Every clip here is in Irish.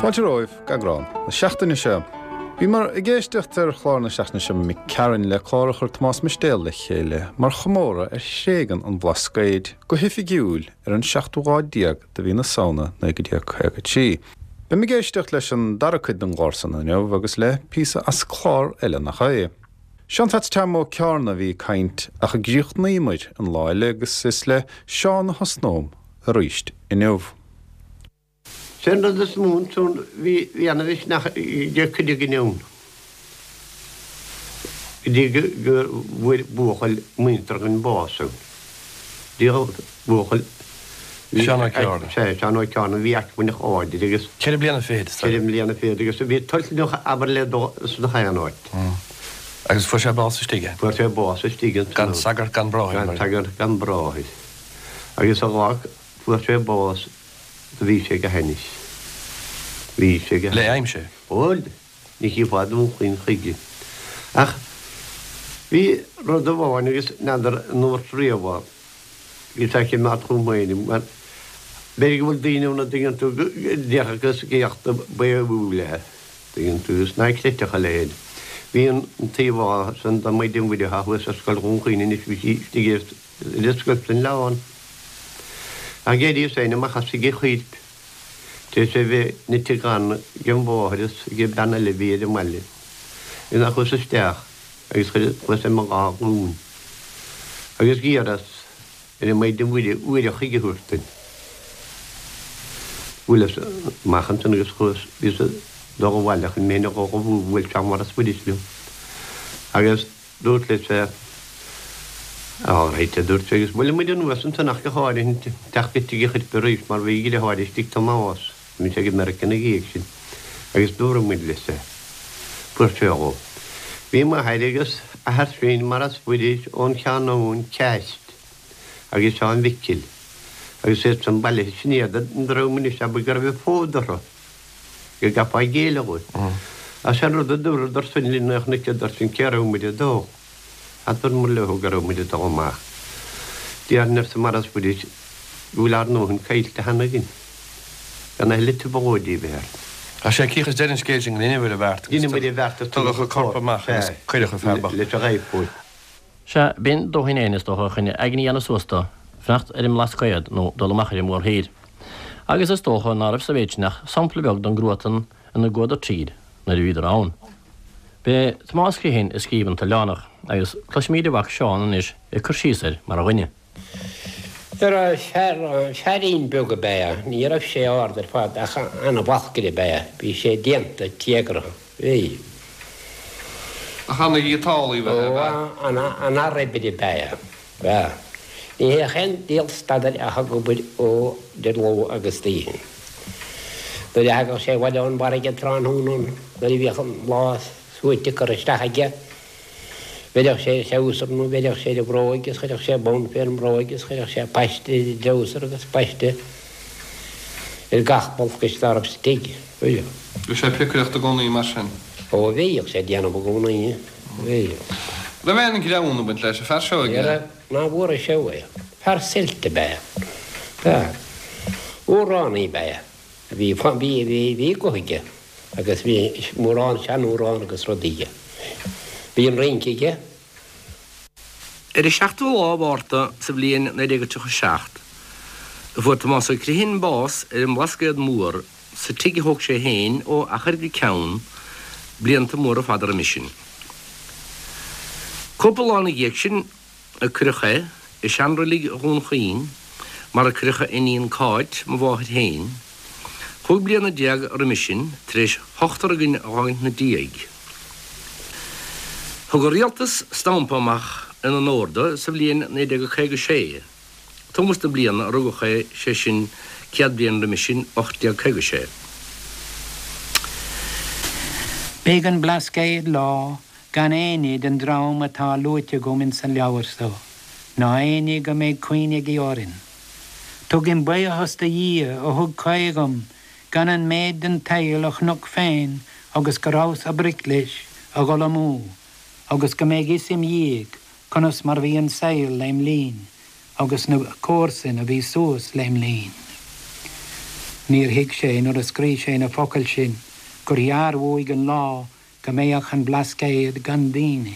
Fáilte romhaibh go eagrán na seachtaine seo. Bhíomar ag éisteacht ar chlár na seachtaine seo imigh tharainn le clár a chuir Tomás Mistéal le chéile mar chomóradh ar thréigean an Bhlascaoid go hoifigiúil ar an seachtú lá déag de mhí na Samhna 1953. Beimid ag éisteacht leis an dara cuid den gclár san inniu agus le píosa as clár eile nach é. Seán Pheats Tom Ó Ceárna a bhí ag caint ach a gcríochnaíomar an lá eile agus is le Seán a thosnóm arís inniu. Sé an rud is mó ansan bhí bhí ana mhisneach ag cuid againn ann go dtí go bhfuair buachaill muinteartha againn bás ann. Díol buachaill. Seán Ó Ceárna. Sea, Seán Ó Ceárna, bhí acmhainneach láidir agus. Ceithre bliana fichead, is Ceithre mbliana fichead agus bhí toilteanach abair le dul sna haon áit. Agus fuair sé bás istigh é? Fuair sé bás istigh ansan. Gan sagart gan bráthair. Gan sagart gan bráthair. Agus an lá fuair sé bás do bhí sé go hainnis. Bhí sé go hainnis. Le aimsir? Bhuel, ní chífeá Dún Chaoin chuige. Ach bhí rud amháin agus n'fheadar an ndúrt riamh é, bhí sé ag imeacht chugam féin, mar b'fhéidir go bhfuil daoine ann a dtuigeann tú go déarfadh gus géachta baothúil é, tuigeann tú, is ná creidfeadh a leithéid. Bhí an t-íomhá san de Mhaighdean Mhuire atá thuas ar Scoil Dhún Chaoin anois, bhí sí istigh ar an scoil san oileán. Ach d'éiríos féin amach as tigh an choirp. Tar éis é bheith nite gann ag an mháthair is ag an bean eile a bhí ar an mbaile. Is ná chuas isteach agus chuas ar mo dhá ghlúin agus d'iarras ar an Maighdean Mhuire uair a choig a thabhairt duinn. Bhuaileas amach ansan agus chuas, bhíos ag dul abhaile chun mé féin a dhubhú, bhuail Seán Mhaurice Mhuiris liom agus. Dúrt leis é. All right, a dúirt sé, agus bhuail muid anuas ansan ach go háirithe teacht go tigh a' choirp arís mar bhí a dhriotháir istigh Tomás, bhí sé go Meiriceá ina dhiaidh sin, agus dúradh muid leis é. Fuair sé dhó. Bhí m'athair agus athair féin Maurice Mhuiris ón Cheann Abhann Ceaist agus Seán Mhicil agus iad san bailithe sin iad an dream anois abair go raibh fód orthu. go gcaithfeá géilleadh dhóibh. Ach sé an rud a dúradar sin linn nuair a chonaiceadar sin cé raibh muid ag dul. Adúramar leo go raibh muid ag dul amach. Déarfainn arsa Maurice Mhuiris go bhfuil ár ndóthain caillte cheana againn. Gan a thuilleadh trioblóidí a bheith orainn. Ach sé cíoch is deireadh an scéil sin go ndeineadh ar an bheart agus Dheineamair an bheart agus tugadh an corp amach agus cuireadh an fear bocht. leis an ghaibhtheoir. Sea, b'in dóthain fhéin, is dócha, chun aigne a dhéanamh suas dó, fanacht ar an mBlascaod nó dul amach ar an mórthír. Agus is dócha ná raibh sa mhéid sin ach sampla beag den gcruatan ina gcuadar tríd nuair a bhíodar ann. B'é Tomás Criomhthain a scríobh an tOileánach, agus cloisfimíd a mhac Seán anois ag cur síos air mar dhuine. Fear, feairín beag ab ea é. Ní raibh sé ard ar fad ach ana-bhalcaire ab ea é. Bhí sé déanta téagartha. Bhí. Ach ana-ghiotálaí ab ea é? Ó, ana-fhear oibre ab ea é. Bhí. Ní théadh aon diabhal stad air ach ag obair ó idir ló agus oíche. Nuair a thagadh sé abhaile ón bhfarraige tráthnóna nuair a bhíodh an lá suaite curtha isteach aige, Bheireadh sé ar a threabhsar nó bheireadh sé ar a bhróig is chuirfeadh sé bonn fé an mbróig is chuirfeadh sé paiste ar an dtreabhsar agus paiste ar gach balcaiste dá raibh sa tigh. Bhíodh. Bhí sé ag piocaireacht i gcónaí mar sin? Ó bhíodh sé ag déanamh i gcónaí. Bhíodh. Raibh aon ghreann ag baint leis an fear seo aige? Ní raibh, ná bhfuair sé uaidh. Fear suilt ab ea é. B'ea. Amhránaí ab ea é. Bhí, bhí, bhí, bhí guth aige. Agus bhí mórán seanamhrán agus rudaí aige. Bhí an rince aige. Ar an seachtú lá Mhárta sa bhliain 1937 a fuair Tomás Ó Criomhthain bás ar an mBlascaod Mór sa tigh a thóg sé féin ó achar go ceann blianta móra fada roimis sin. Cúpla lá ina dhiaidh sin a cuireadh é i seanreilig Dhún Chaoin mar a cuireadh a iníon Cáit, mo mháthair féin, chúig bliana roimis sin tar éis ochtar againn a dh'fhágaint 'na diaidh. Thug an Rialtas stampa amach in onóir do sa bhliain 1956, tomhas na bliana a rugadh é, sé sin 100 bliain roimis sin, 1856. B'é an Blascaod lá. Gan éinne den dream atá luaite agam ins an leabhar so, ná éinne go mbeidh cuimhne aige orainn. Tugaim buidheachas do Dhia a thug caoi dhom gan an méid den tsaol a chonac féin agus go rabhas ag broic leis a dhul amú agus go mbeidh fhios im dhiaidh conas mar bhí an saol lem linn agus na comharsain a bhí suas lem linn. Níor thuig sé nuair a scrígh sé na focail sin gur ghearr uaidh an lá go mbeadh an Blascaod gan daoine.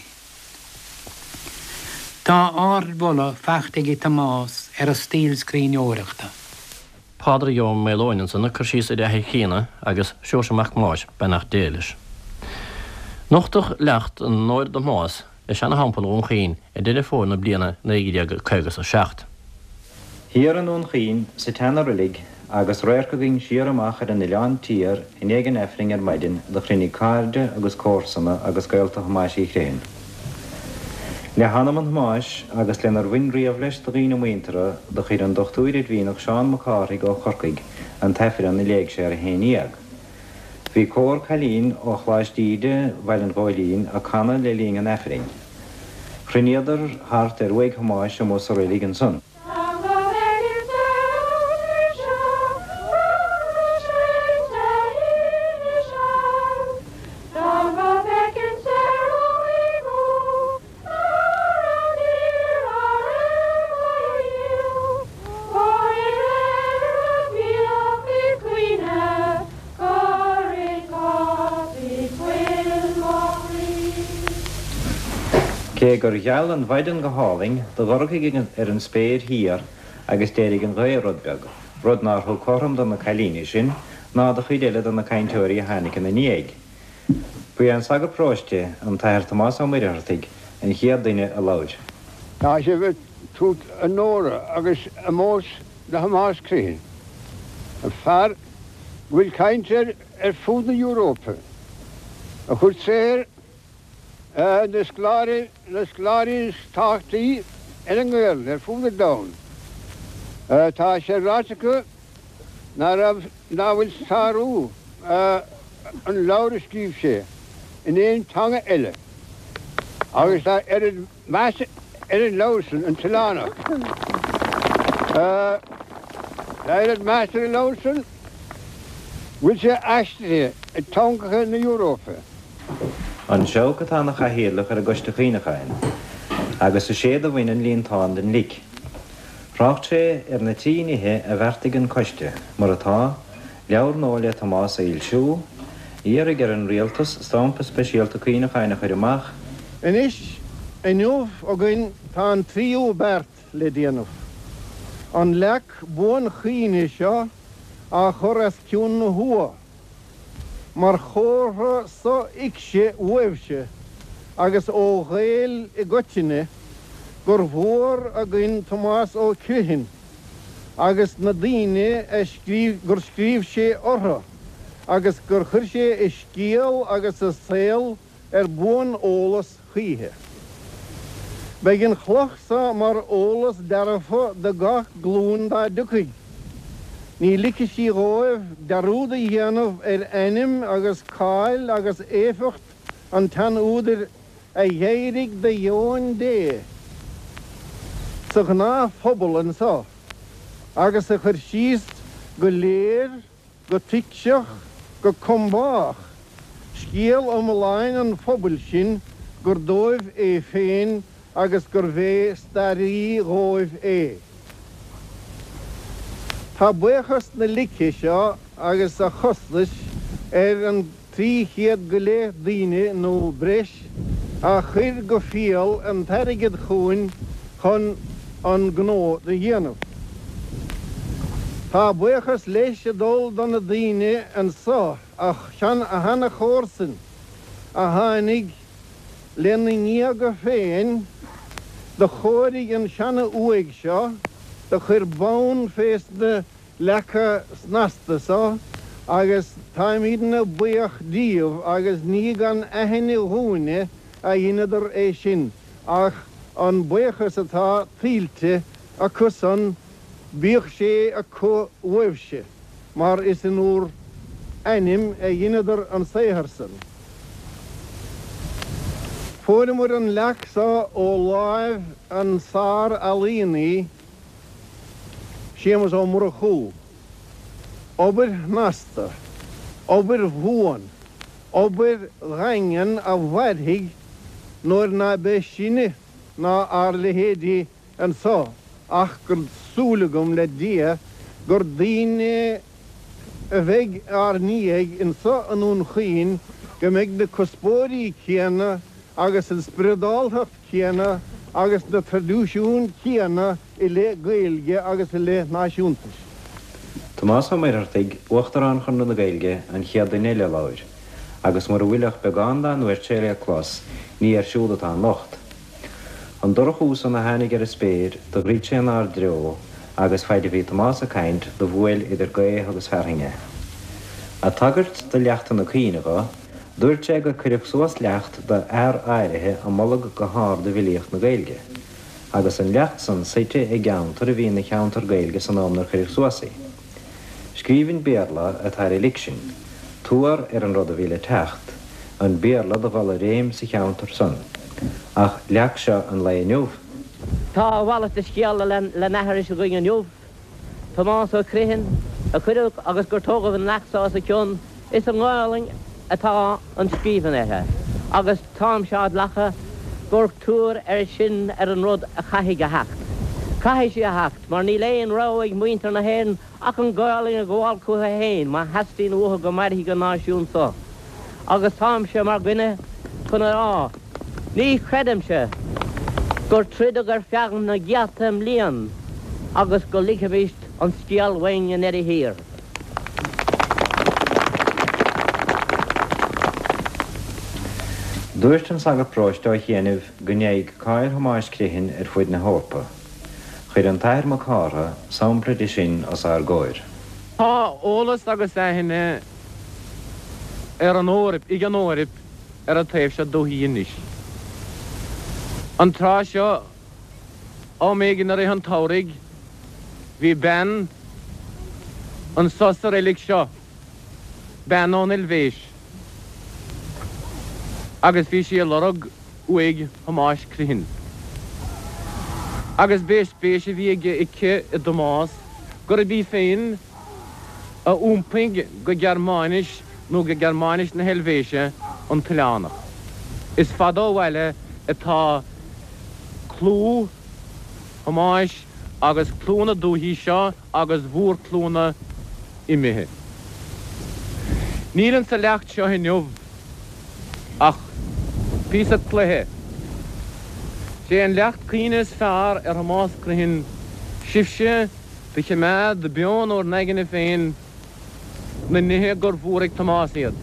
Tá ardmholadh faighte ag Tomás ar a stíl scríbhneoireachta. Pádraig Ó Maoileoin ansan ag cur síos ar a athair críonna agus Seoirse Mac Thomáis, beannacht Dé leis. Nochtadh leacht in onóir do Thomás i seana-Theampall Dhún Chaoin i Deireadh Fómhair na bliana 1957. Thiar i nDún Chaoin, sa tseana-roilig, agus radharc againn siar amach ar an Oileán Tiar i ndiaidh an Aifrinn ar maidin, do chruinnigh cairde agus comharsana agus gaolta Thomáis Uí Chrithin. Le hanam an Thomáis agus lenar bhain riamh leis de dhaoine muinteartha, do chuir an Dochtúir Oidmhíneach Seán Mac Cárthaigh ó Chorcaigh an tAifreann a léigh sé ar a 11. Bhí cór cailín ó Choláiste Íde Bhaile an Ghóilín ag canadh le linn an Aifrinn. Chruinníodar thart ar uaigh Thomáis amuigh sa roilig ansan. Cé gur gheal an mhaidin go hálainn, do dhorchaigh ar an spéir thiar agus d'éirigh an ghaoth rud beag, rud nár thug cothrom do na cailíní sin ná do chuid eile de na cainteoirí a tháinig ina ndiaidh. Ba é an sagart paróiste, an tAthair Tomás Ó Muircheartaigh, an chéad duine a labhair. Tá sibh ag tabhairt onóra agus omóis do Thomás Criomhthain, an fear go bhfuil caint air ar fud na hEurópa, a chuir saothar na scoláirí, na scoláirí is tábhachtaí ar an nGaelainn ar fud an domhain. Tá sé ráite acu ná raibh, ná bhfuil sárú an leabhair a scríobh sé in aon teanga eile agus tá oiread meas ar an leabhar san, An tOileánach. Tá oiread meas ar an leabhar san go bhfuil sé aistrithe i dteangacha na Europa. An Seabhac atá ina chathaoirleach ar an gCoiste Cuimhneacháin agus is é do bhain an líontán den lic. Thrácht sé ar na trí nithe a bheartaigh an Coiste, mar atá, leabhar nua le Tomás a fhoilsiú, iarraidh ar an Rialtas stampa speisialta cuimhneacháin a chur amach, Anois, inniu againn tá an tríú beart le déanamh. An leac buanchuimhne seo á chur os cionn na huagha. Mar chomhartha sothuigse uaibhse agus ó Ghaeil i gcoitinne gur mhór againn Tomás Ó Criomhthain agus na daoine a scríobh, gur scríobh sé orthu agus gur chuir sé a scéal agus a saol ar buan-eolas choíche. Beidh an chloch so mar eolas dearfa do gach glúin dá dtiocfaidh. Ní ligfidh sí dhóibh dearúd a dhéanamh ar ainm agus cáil agus éifeacht an tsean-údair a dh'éirigh de dheoin Dé sa ghnáthphobal anso agus a chuir síos go léir go tuigseach, go combách, scéal iomláin an phobail sin gur dóibh é féin agus gurbh é staraí dhóibh é. Tá buíochas na lice seo agus a chostais ar an 300 go leith daoine nó breis a chuir go fial an t-airgead chugainn chun an gnó do dhéanamh. Tá buíochas leis ag dul do na daoine anso, a sheana-chomharsain, a tháinig lena ngéaga féin, do chóirigh an seana-uaigh seo, do chuir bonn fés na leaca snasta so agus táimídne buíoch díobh agus ní gan aithne dhúinne a dheineadar é sin ach an buíochas atá tuillte acu-san bíodh sé acu uaibhse mar is in úr n-ainm a dheineadar an saothar san. Fuaireamar an leac so ó láimh an sár-ealaíonaí Séamus Ó Murchú. Obair shnasta, obair bhuan, obair dhaingean a mhairfidh nuair ná beidh sinne ná ár leithéidí anso ach gur súil agam le Dia gur daoine a bheidh ár ndiaidh anso i nDún Chaoin go mbeidh na cuspóirí céanna agus an spioradáltacht chéanna agus na traidisiúin chéanna i leith Gaeilge agus i leith náisiúntais. Tomás Ó Muircheartaigh, Uachtarán Chonradh na Gaeilge, an chéad duine eile a labhair, agus mura bhfuil ach beagán dá ndúirt sé le clos, ní air siúd atá an locht. An dorchú san a tháinig ar an spéir do dhruid sé inár dtreo agus faid a bhí Tomás ag caint do bhuail idir gaoth agus fearthainn é. Ag tagairt do leachtanna cuimhne dho, dúirt sé gur cuireadh suas leacht do fhear áirithe a moladh go hard i bhfilíocht na Gaeilge, agus an leacht san suite i gceantar a bhí ina cheantar Gaeilge san am 'nar cuireadh suas í. Scríbhinn Béarla atá ar an lic sin, tuar ar an rud a bhí le teacht, an Béarla do dhul i réim sa cheantar san. Ach leac seo an lae inniu? Tá a mhalairt de scéal le n-aithris againn inniu. Tomás Ó Criomhthain a cuireadh agus gur tógadh an leac so os a cionn, is i nGaolainn atá an scríbhinn uirthi, agus táimse á glacadh gur tuar é sin ar an rud a chaithfidh a theacht. Caithfidh sí a theacht, mar níl aon rogha ag muintir na hÉireann ach an Ghaolainn a ghabháil chucu féin má theastaíonn uathu go mairfidh an náisiún so. Agus táimse mar dhuine chun a rá, ní chreidimse gur troideadh ar feadh na gcéadta mbliain agus go ligfimíst an scéal uainn i ndeireadh thiar. Dúirt an sagart paróiste ó chianaibh go ndeachaigh cáil Thomáis Criomhthain ar fuaid na hEorpa. Chuir an tAthair Mac Cártha sampla de sin os ár gcomhair. Tá eolas agus aithne ar an Eoraip, ag an Eoraip ar an taobh seo dúthaí anois. An tráth seo, am éigin i rith an tsamhraidh, bhí bean anso sa reilig seo, bean ón Eilvéis, agus bhí sí ag lorg uaigh Thomáis Criomhthain. Agus b'é spéis a bhí aige aici i dTomás gurb í féin a iompaigh go Gearmáinis nó go Gearmáinis na hEilvéise an t-oileánach. Is fada ó bhaile atá clú Thomáis agus clú na dúichí seo agus mhórchlúnna imithe. Níl insa leacht seo inniu ach píosa cloiche. Sé an leacht cuimhne is fearr ar Thomás Criomhthain sibhse do chimeád beo in bhur n-aigne féin na nithe gur mhór ag Tomás iad.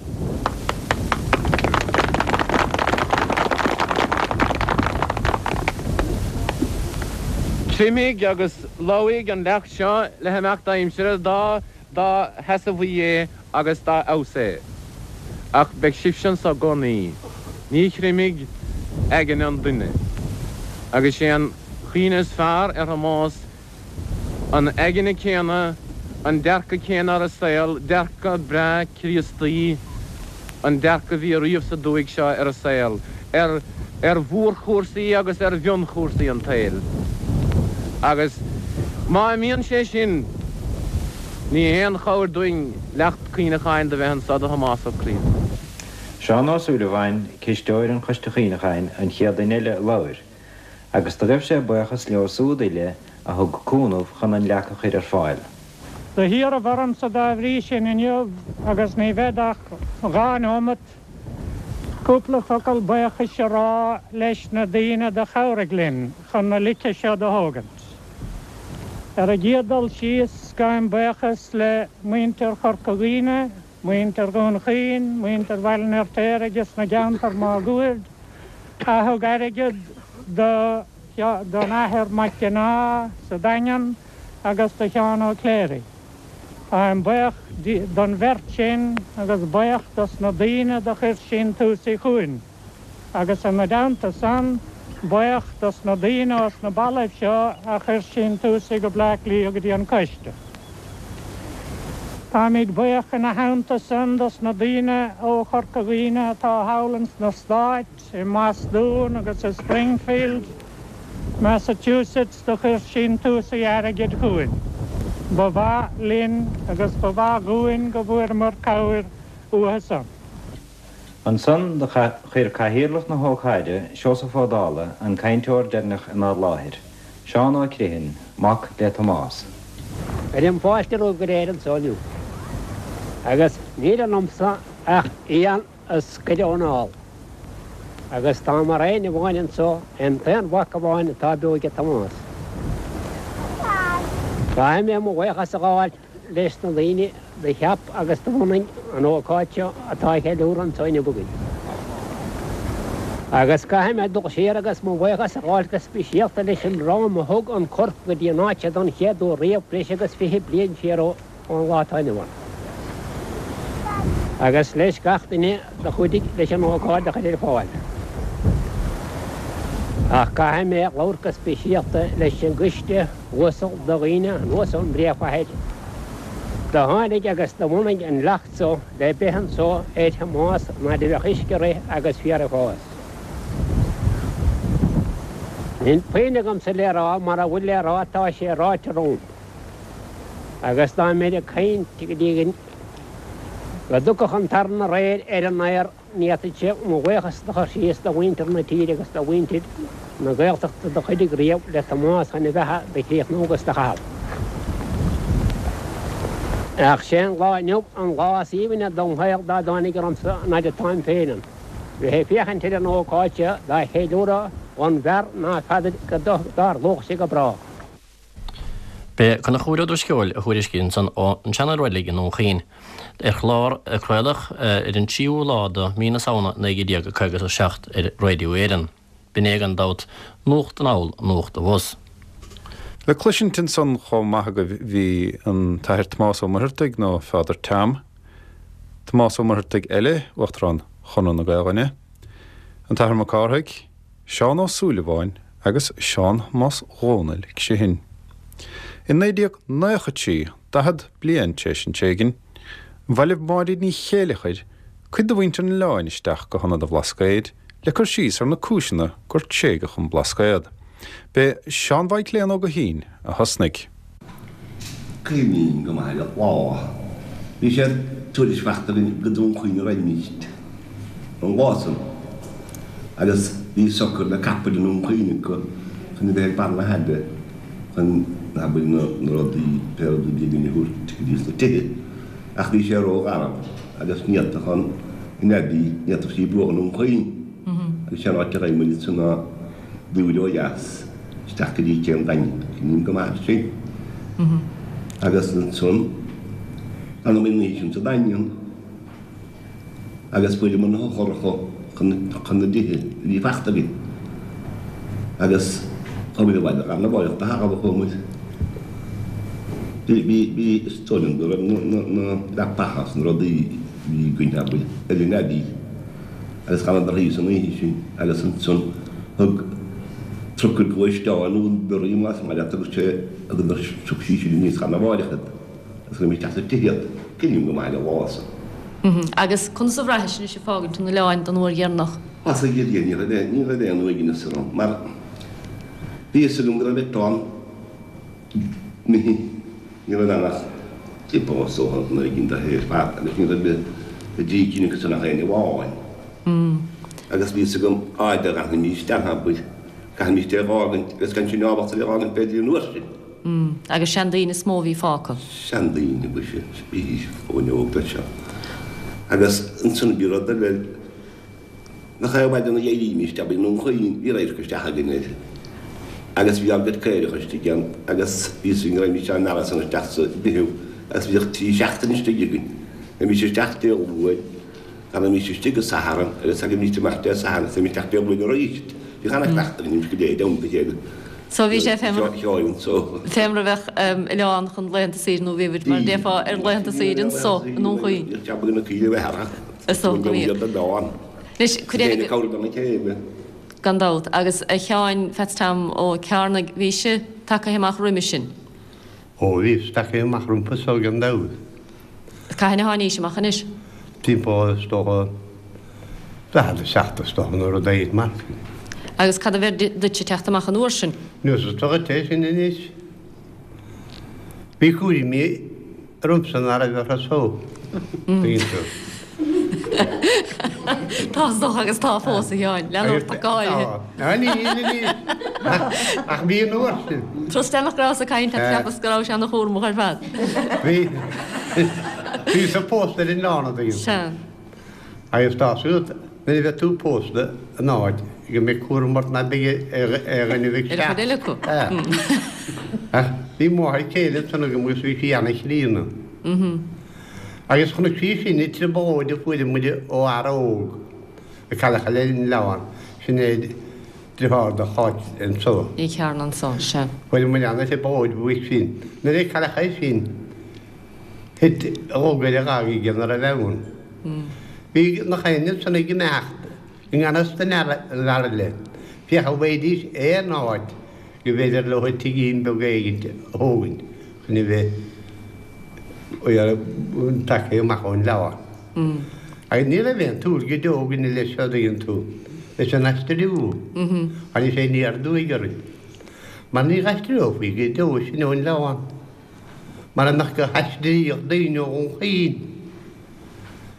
Creimfidh agus lobhfaidh an leacht seo le himeacht aimsire dá dá sheasamhaí é agus dá fheabhas é. Ach beidh sibhse anso i gcónaí. Ní chreimfidh aigne an duine. Agus sé an chuimhne is fearr ar Thomás An aigne céanna, an dearcadh céanna ar an saol, dearcadh breá Críostaí, an dearcadh a bhí ariamh sa dúthaigh seo ar an saol, ar ar mhórchúrsaí agus ar mhionchúrsaí an tsaoil. Agus má imíonn sé sin, ní haon chabhair dúinn leacht cuimhneacháin do bheith anso do Thomás Ó Criomhthain. Seán Ó Súilleabháin, cisteoir an Choiste Chuimhneacháin, an chéad duine eile a labhair. agus do ghaibh sé buíochas leo súd uile a thug cúnamh chun an leac a chuir ar fáil. Do hiarraibh ormsa dá bhrí sin inniu, agus ní bhead ach dha neomat, cúpla focal buíochais a rá leis na daoine do chabhraigh linn chun na lice seo do thógaint. Ar an gcéad dul síos, gabhaim buíochas le muintir Chorca Dhuibhne, muintir Dhún Chaoin, muintir Bhaile an Fheirtéaraigh agus na gceantar máguaird a thug airgead do don Athair Mac Cionnaith sa Daingean agus do Sheán Ó Cléirigh. Táim buíoch don bheirt sin agus buíoch dos na daoine do chuir síntiúsaí chugainn agus ina dteannta san, buíoch dos na daoine ós na ballaibh seo a chuir síntiúsaí go Bleá Cliath go dtí an Coiste. Táimid buíoch ina theannta san dos na daoine ó Chorca Dhuibhne atá thall ins na Stáit, i mBostún agus i Springfield, Massachusetts do chuir síntiúsaí airgid chugainn. Ba mhaith linn agus ba mhaith dhúinn go bhfuaireamar cabhair uathu san. Ansan do chuir cathaoirleach na hócáide, Seosamh Ó Dálaigh, an cainteoir deireanach inár láthair, Seán Ó Criomhthain, mac le Tomás. Cuirim fáilte romhaibh go léir anso inniu. Agus níl ionamsa ach éan a scoireadh ón ál. Agus tá mar aon amháin anso, an t-aon mhac amháin atá beo aige Tomás. Caithfidh mé mo bhuíochas a ghabháil leis na daoine do cheap agus do bhunaigh an ócáid seo atá á cheiliúradh anso inniu againn. Agus caithfidh mé dul siar agus mo bhuíochas a ghabháil go speisialta leis an dream a thug an corp go dtí an áit seo don chéad uair riamh breis agus 20 bliain siar ón lá atá inniu ann. Agus leis gach duine do chuidigh leis an ócáid a chur ar fáil. Ach caithfidh mé labhairt go speisialta leis an gcoiste uasal de dhaoine anuas ón bpríomhchathair do tháinig agus do bhunaigh an leacht so le beith anso ar Thomás an fhaid a bheadh uisce ag rith agus féar ag fás. Níl puinn agamsa le rá, mara bhfuil le rá tá sé ráite romham. Agus dá mbeinn ag caint go dtí go dtiocfadh an taran aréir ar an aer, Ní fhéadfainnse mo bhuíochas do chur síos do mhuintir na tíre agus do mhuintir na Gaeltachta do chuidigh riamh le Tomás chun a bheatha do chríochnú agus do chaitheamh. Ach sé an lá inniu an lá is aoibhne dom shaol dá dtáinig ormsa an fhaid atáim féin ann, bheith ag féachaint ar an ócáid seo dá cheiliúradh dhon bhfear ná feadair go dtarlódh sé go brách. B'é Conchúr Ó Drisceoil a thuairiscigh ansan ón tSeana-Reilig i nDún Chaoin ar chlár a craoladh ar an tríú lá de mhí na Samhna 1957 ar Radio Éireann. B'in é gan dabht nuacht anall nuacht abhus. Le cloisint ansan chomh maith agaibh bhí an tAthair Tomás Ó Muircheartaigh nó Father Tom, Tomás Ó Muircheartaigh eile, Uachtarán Chonradh na Gaelainne, an tAthair Mac Cárthaigh, Seán Ó Súilleabháin agus Seán Thomáis Dhónaill Criomhthain. I 1993, 40 bliain tar éis an tréigin, bhailigh Máirín Ní Chéileachair cuid de mhuintir an oileáin isteach go hIonad an Bhlascaoid le cur síos ar na cúiseanna gur tréigeadh an Blascaod. B'é Seán Mhaidhcléan Ó Guithín a thosnaigh. Cuimhním go maith ar an lá. Bhí sé tuairisc fachta againn go Dún Chaoin a raghaimíst an lá san agus bhí socair le capaill i nDún Chaoin acu chun a bheith ag barr na haille chun, abair, na rudaí, pé rud a bhí againn a thabhairt go dtí sna tithe. Ach bhí sé ró-gharbh agus ní fhéadfadh an an Abbey, ní fhéadfadh sí bruach i nDún Chaoin agus sé an áit a raibh muid ansan ná Dúire ó dheas isteach go dtí Cé an Daingin, cuimhním go maith air sin. Agus ansan, d'fhanamar an oíche sin sa Daingean agus fuaireamar na heochracha chun na dtithe a bhí fachta againn. Agus chuamar abhaile lá arna mháireach de thalamh a chuamar. Bhí, bhí, bhí, is dóigh liom go raibh na, na, na leapacha is na rudaí a bhí againn, abair, ar an Abbey. Agus d'fhanadar thíos an oíche sin agus ansan thug trucail gluaisteáin nó lorraí más maith leat agus sé thugadar phioc sí sin aníos lá arna mháireach iad agus chuir isteach sa tigh iad. Cuimhním go maith ar an lá san. Agus conas a bhraithis anois ag fágaint an oileáin don uair dheireanach? Sea a Dhia ní raibh ní raibh aon uaigneas orm mar bhí fhios agam go raibh eitleán imithe. Ní raibh ann ach dip is dócha an oiread de ar fad agus ní raibh i dtrí cinn acu san ach éinne amháin. Agus bhí fhios agam áit a gcaithfimis ann abair, caithfimis é a dh'fhágaint agus gan sinn ábalta é a dh'fhágaint b'fhéidir an uair sin. Agus seandaoine is mó a bhí fágtha. Seandaoine, ba ea, bhídís fós óg leis seo. Agus ansan bhí rud eile. Nach é maidin a d'éirímist abair i nDún Chaoin, bhí radharc isteach againn air agus bhí ár gcuid caorach istigh ann agus bhí fhios againn go raghaimist á mbearradh san isteach sa bhfichiú agus bhíodh trí seachtaine istigh againn. Bheimis isteach Dé Luain, d'fhanaimís istigh go Satharn agus thagaimíst amach Dé Sathairn agus bheimis isteach Dé Luain arís. Bhíodh ana-chleachtadh againn go dté i dteannta a chéile. So bhí sé fé mar fé mar a bheadh oileán chun laethanta saoire nó bhí mar a déarfá ar laethanta saoire anso i nDún Chaoin. Bhíodh jab ag na caoirigh a bheith thart. Is dócha go mbíodh. Anois, cuid eile. Gan dabht. Agus a Sheáin Pheats Tom Ó Cearnaigh, bhís-se tagtha amach roimis sin? Ó, bhíos tagtha amach rompu so gan dabht. cathain a tháinís amach anois? Timpeall is dócha 47 is dócha nó rud éigin mar sin. Agus cad a bheir duitse teacht amach an uair sin? Neosad dhuit é sin anois. Bhí cúraimí ormsa ná raibh orthu so, tuigeann tú. Tá is dócha agus tá fós, a Sheáin, lean ort ach go háirithe. Tá, níl anois, ach bhí an uair sin. Trust nach rabhas ag caint leat, cheapas go raibh sé ana chúramach ar fad. Bhí, bhíos-sa pósta ar an oileán, an dtuigeann tú. Sea. Agus tá a fhios agat, nuair a bheidh tú pósta in áit go mbeidh cúram ort ná beidh ar dhuine bheidh Ar an chuid eile acu. Ach bhí máthair céile ansan agam agus bhí sí ana-chríonna. Agus chonaic sí sin i trioblóid a fuair muid ó fhear óg a cailleadh ar an oileán, sin é deartháir do Cháit anso. Ní Chearna anso, sea. Fuair muid ana-thrioblóid uaidh sin. Nuair a cailleadh é sin, Thit a rug ar a ghaga aige ina raibh ann. Bhí nach éinne ansan ag imeacht i ngan fhios don fhear eile, féach an bhfaighidís aon áit go mb'fhéidir leo tigín beag éigint a thógaint chun a bheith tagtha amach ón oileán. Agus ní raibh aon tsúil go deo againne leis seo, an dtuigeann tú, leis an aistriú. Tháinig sé aniar aduaidh orainn. Mar ní aistreofaí go deo sinn ón oileán. Mara mbeadh gur aistríodh daoine ó Dhún Chaoin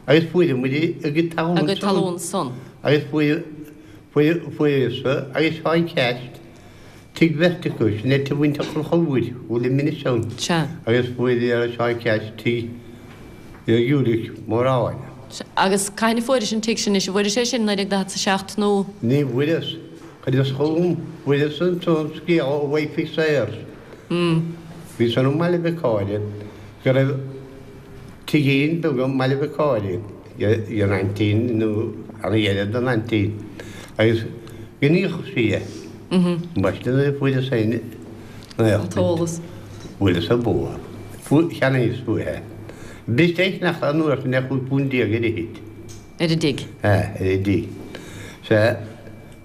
agus fuair muid a gcuid talún A gcuid talún san. Agus fuair, fuair, fuaireas-sa agus Seán Ceaist tigh bheirt acu, sin é tigh mhuintir Chonchubhair, bhfuil i Inis ann. Sea. Agus fuair Seán Ceaist tigh Ulick Móráin. Sea. Agus cathain a fuairis an tigh sin anois? An bhfuairis é sin i 1947 nó? Ní bhfuaireas. Chuireas chugam, fuaireas ansan scéala ó Wife Sayers. Bhí san i mBaile Mhic Cáire go raibh tigín beag i mBaile Mhic Cáire ag an aintín nó an dheirfiúr don aintín agus go ndíolfadh sí é. Ambaiste nuair a fuaireas féin an t-eolas. Bhuaileas an bóthar. Cheannaíos uaithe é. B'fhuirist é a cheannach an uair sin ar 15 púnt ar fhichid. Ar an dtigh. Ar an dtigh. Sea.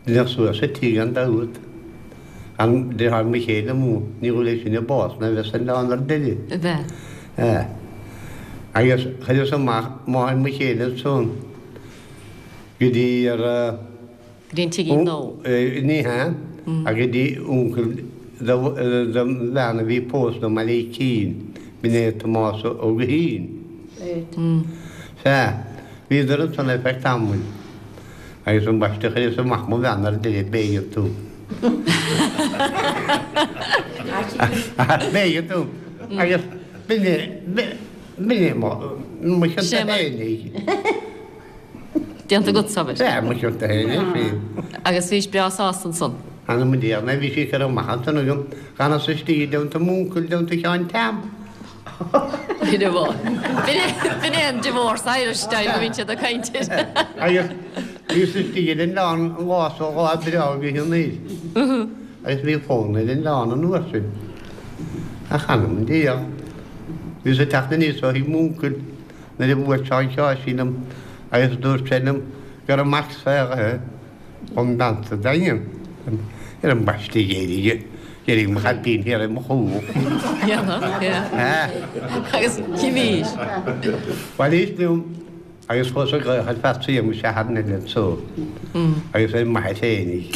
Deineadh suas an tigh gan dabht. An deartháir mo chéile amuigh, ní dhóigh leis sin a bás ná bheith san oileán ar deireadh. A bheith. Ea. Agus chuireas amach máthair mo chéile ansan go dtí ar a. Go dtí an tigín nua. Ní hea, ach go dtí uncail dom bhean a bhí pósta i mBaile Icín, b'in é Tomás Ó Guithín. Sea, bhíodar ansan ar feadh tamaill. Agus ambaiste chuireas amach mo bhean ar deireadh b'éigean dom. B'éigean dom. Agus b'in é, b'in é mo, mo chionta féinig. Déanta agat, abair. Sea, mo chionta féin é sin. Agus bhís breá sásta ansan. Th'anam 'on diabhal, bhí sí curtha amach ansan agam, d'fhanas istigh i dteannta m'uncail, i dteannta Sheáin Tom. B'in é an divorce Irish style a bhíonn siad ag caint air. Agus bhíos istigh ar an oileán an lá so lá breá gaoithe anoir. Agus bhí fonn ar an oileán an uair sin. Ach th'anam 'on diabhal. Bhíos ag teacht aníos ó thigh m'uncail nuair a bhuail Seán Sheáirsín liom agus dúirt sé liom go raibh mac saolaithe Ón mbean sa Daingean ar ambaiste d'éirigh d'éirigh mo chaipín thiar ar mo chúl. Agus chimís. Bhailíos liom agus chuas ag glaoch ar Phatsy mo sheartháir eile anso agus ar m'athair féinig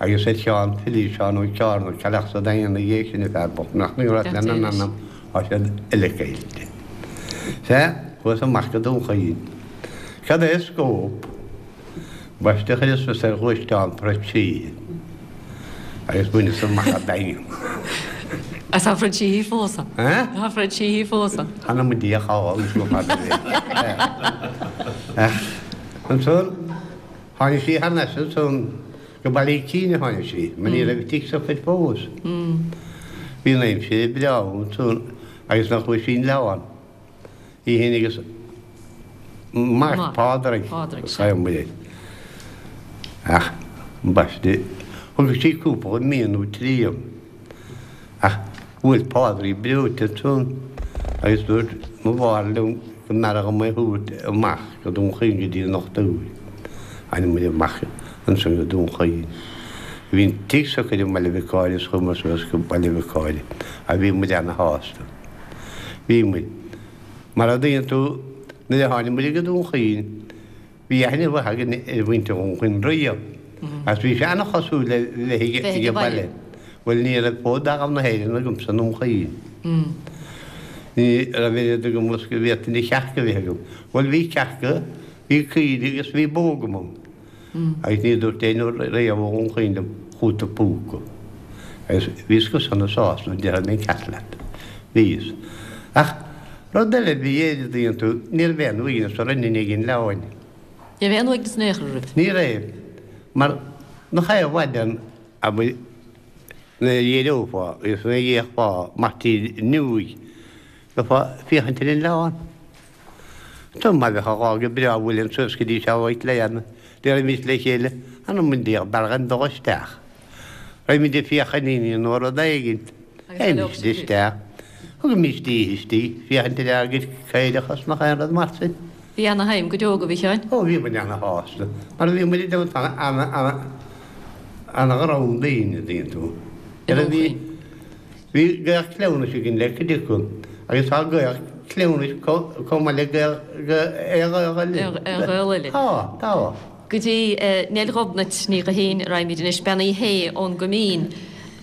agus ar Sheán Philí, Seán Ó Ceárna, cailleadh sa Daingean ina dhiaidh sin, an fear bocht nach ndúirt lena n-anam tá siad uile caillte. Sea, chuas amach go Dún Chaoin. Cad é scóp? Ambaiste chuireas fios ar ghluaisteán Fred Sheehy agus bhaineas amach an Daingean. Agus tá Fred Sheehy fós ann. Tá Fred Sheehy fós ann. Th'anam 'on Dia cá agus go fada é. Ach ansan tháinig sí thar n-ais ansan go Baile Icín a tháinig sí, mar ní raibh tigh socair fós. Bhí an aimsir breá ansan agus nach bhfuair sí an leabhán. Í féin agus mac Pádraig, Pádraig. Ach, ambaiste, thug sí cúpla mí nó trí dhom. Ach bhuail Pádraig breoite ansan agus dúirt mo mháthair liom go mb'fhearra dhom é a thabhairt amach go Dún Chaoin go dtí an dochtúir. Tháinig muid amach ansan go Dún Chaoin. Bhí an tigh socair i mBaile Mhic Cáire is chuamar suas go Baile Mhic Cáire agus bhí muid ana-shásta. Bhí muid. Mar a dtuigeann tú, nuair a tháinig muid go Dún Chaoin, bhí aithne mhaith againn ar mhuintir Dhún Chaoin riamh, agus bhí sé an-chosúil le bheith ag baile. Bhuel, ní raibh fód d'fhearaibh na hÉireann agamsa i nDún Chaoin. Ní raibh oiread agam is go bhféadfainn cearca a bheith agam. Bhuel, bhí cearca, bhí caoirigh agus bhí bó agam ann. Agus ní dúirt éinne riamh ó Dhún Chaoin liom, chúta púca. Agus bhíos go sona sásta, déarfaidh mé an ceart leat. Bhíos. Ach rud eile a bhí air, a dtuigeann tú, ní raibh aon uaigneas orainn i ndiaidh an oileáin. Ní raibh aon uaigneas in aon chor oraibh. Ní raibh. Mar nach é an mhaidin abair nuair a d'éireofá agus nuair a d'fhéachfá amach tríd an fhuinneoig, bheifeá ag féachaint ar an oileán. Dá mba bheadh a dhá go breá bhuaileann suas go dtí seo uait le dhéanamh, déarfaimis le chéile, anam an Dé b'fhearr dhúinn dul isteach. Raghaimid ag féachaint ar nó rud éigint. Théimis isteach. Thugaimis oíche istigh, féachaint ar ár gcuid caorach is nach aon rud mar sin. Bhí ana-shuim go deo agaibh, a Sheáin. Ó, bhí muid ana-shásta, mar bhí muid i dteannta ana-dhream daoine, an dtuigeann tú. Bhí. Bhí gaol cleamhnais againn le cuid acu agus tá gaol cleamhnais chomh maith le gaol aon ghaol eile. Aon ghaol eile. Tá, tá. Go dtí Neil Ghobnait Ní Ghuithín a raghaimid anois, Bean Uí Shé ón gCoimín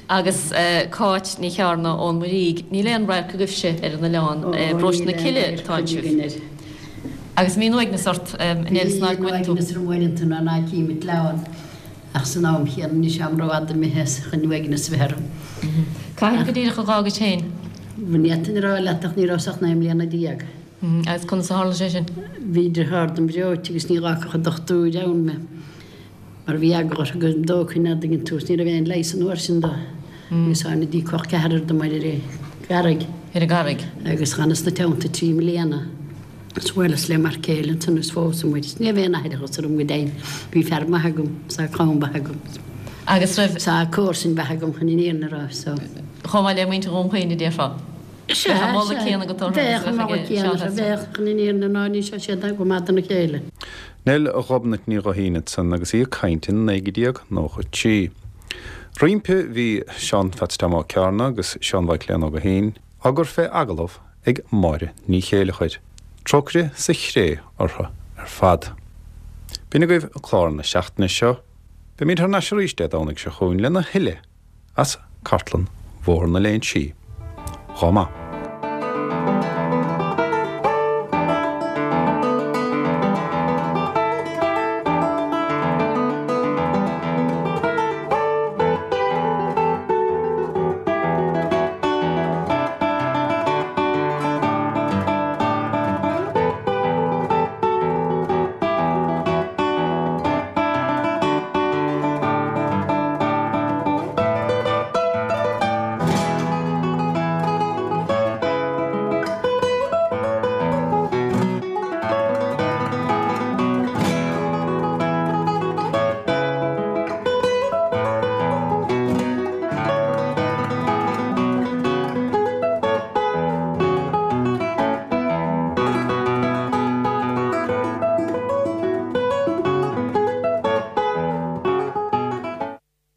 agus Cáit Ní Chearna ón Muirígh. Níl aon radharc agaibhse ar an oileán, i bparóiste na Cille atá sibh. Agus an mbíonn uaigneas ort, a Neil, san áit go bhfuil tú? Bíonn uaigneas orm uaireanta nuair ná cím an t-oileán. Ach san am chéanna níl sé am rófhada imithe as chun uaigneas a bheith orm. Cathain go díreach a dh'fhágais féin? Ní fhéadfainn a rá leat ach ní rabhas ach 19 mbliana. Agus conas a tharla sé sin? Bhí deartháir dom breoite agus ní dh'fhágfadh an dochtúir ann mé mar bhí eagla orthu go dtógfainn an dtuigeann tú is ní raibh aon leigheas an uair sin dó. Agus tháinig col ceathrar dom ar an gCarraig. Ar an gCarraig. Agus dh'fhanas ina teannta 3 mbliana. Is bhuaileas le m'fhear céile ansan is phós muid. Is ní raibh aon aithreachas orm go deimhin. Bhí fear maith agam, is tá clann mhaith agam. Agus raibh. Is tá comharsain mhaith agam chun an fhírinne a rá, so. Chomh maith le muintir Dhún Chaoin a déarfá. Sea, Bheadh an moladh sea. céanna agat orthu Bheadh agus an a bheadh moladh ag céanna Seán orthu, Hester. bheadh, chun an fhírinne a rá, ní seo siad go maith dona chéile. Neil Ghobnait Ní Ghuithín ansan agus í ag caint in 1993. Roimpi bhí Seán Pheats Tom Ó Cearna agus Seán Mhaidhc Léan Ó Guithín á gcur fé agallamh ag Máire Ní Chéileachair. Trócaire sa chré orthu ar fad. B'in agaibh clár na seachtaine seo. Beimid thar n-ais arís Dé Domhnaigh seo chugainn lena thuilleadh as Cartlann Bhóthar na Léinsí. Dhá maith.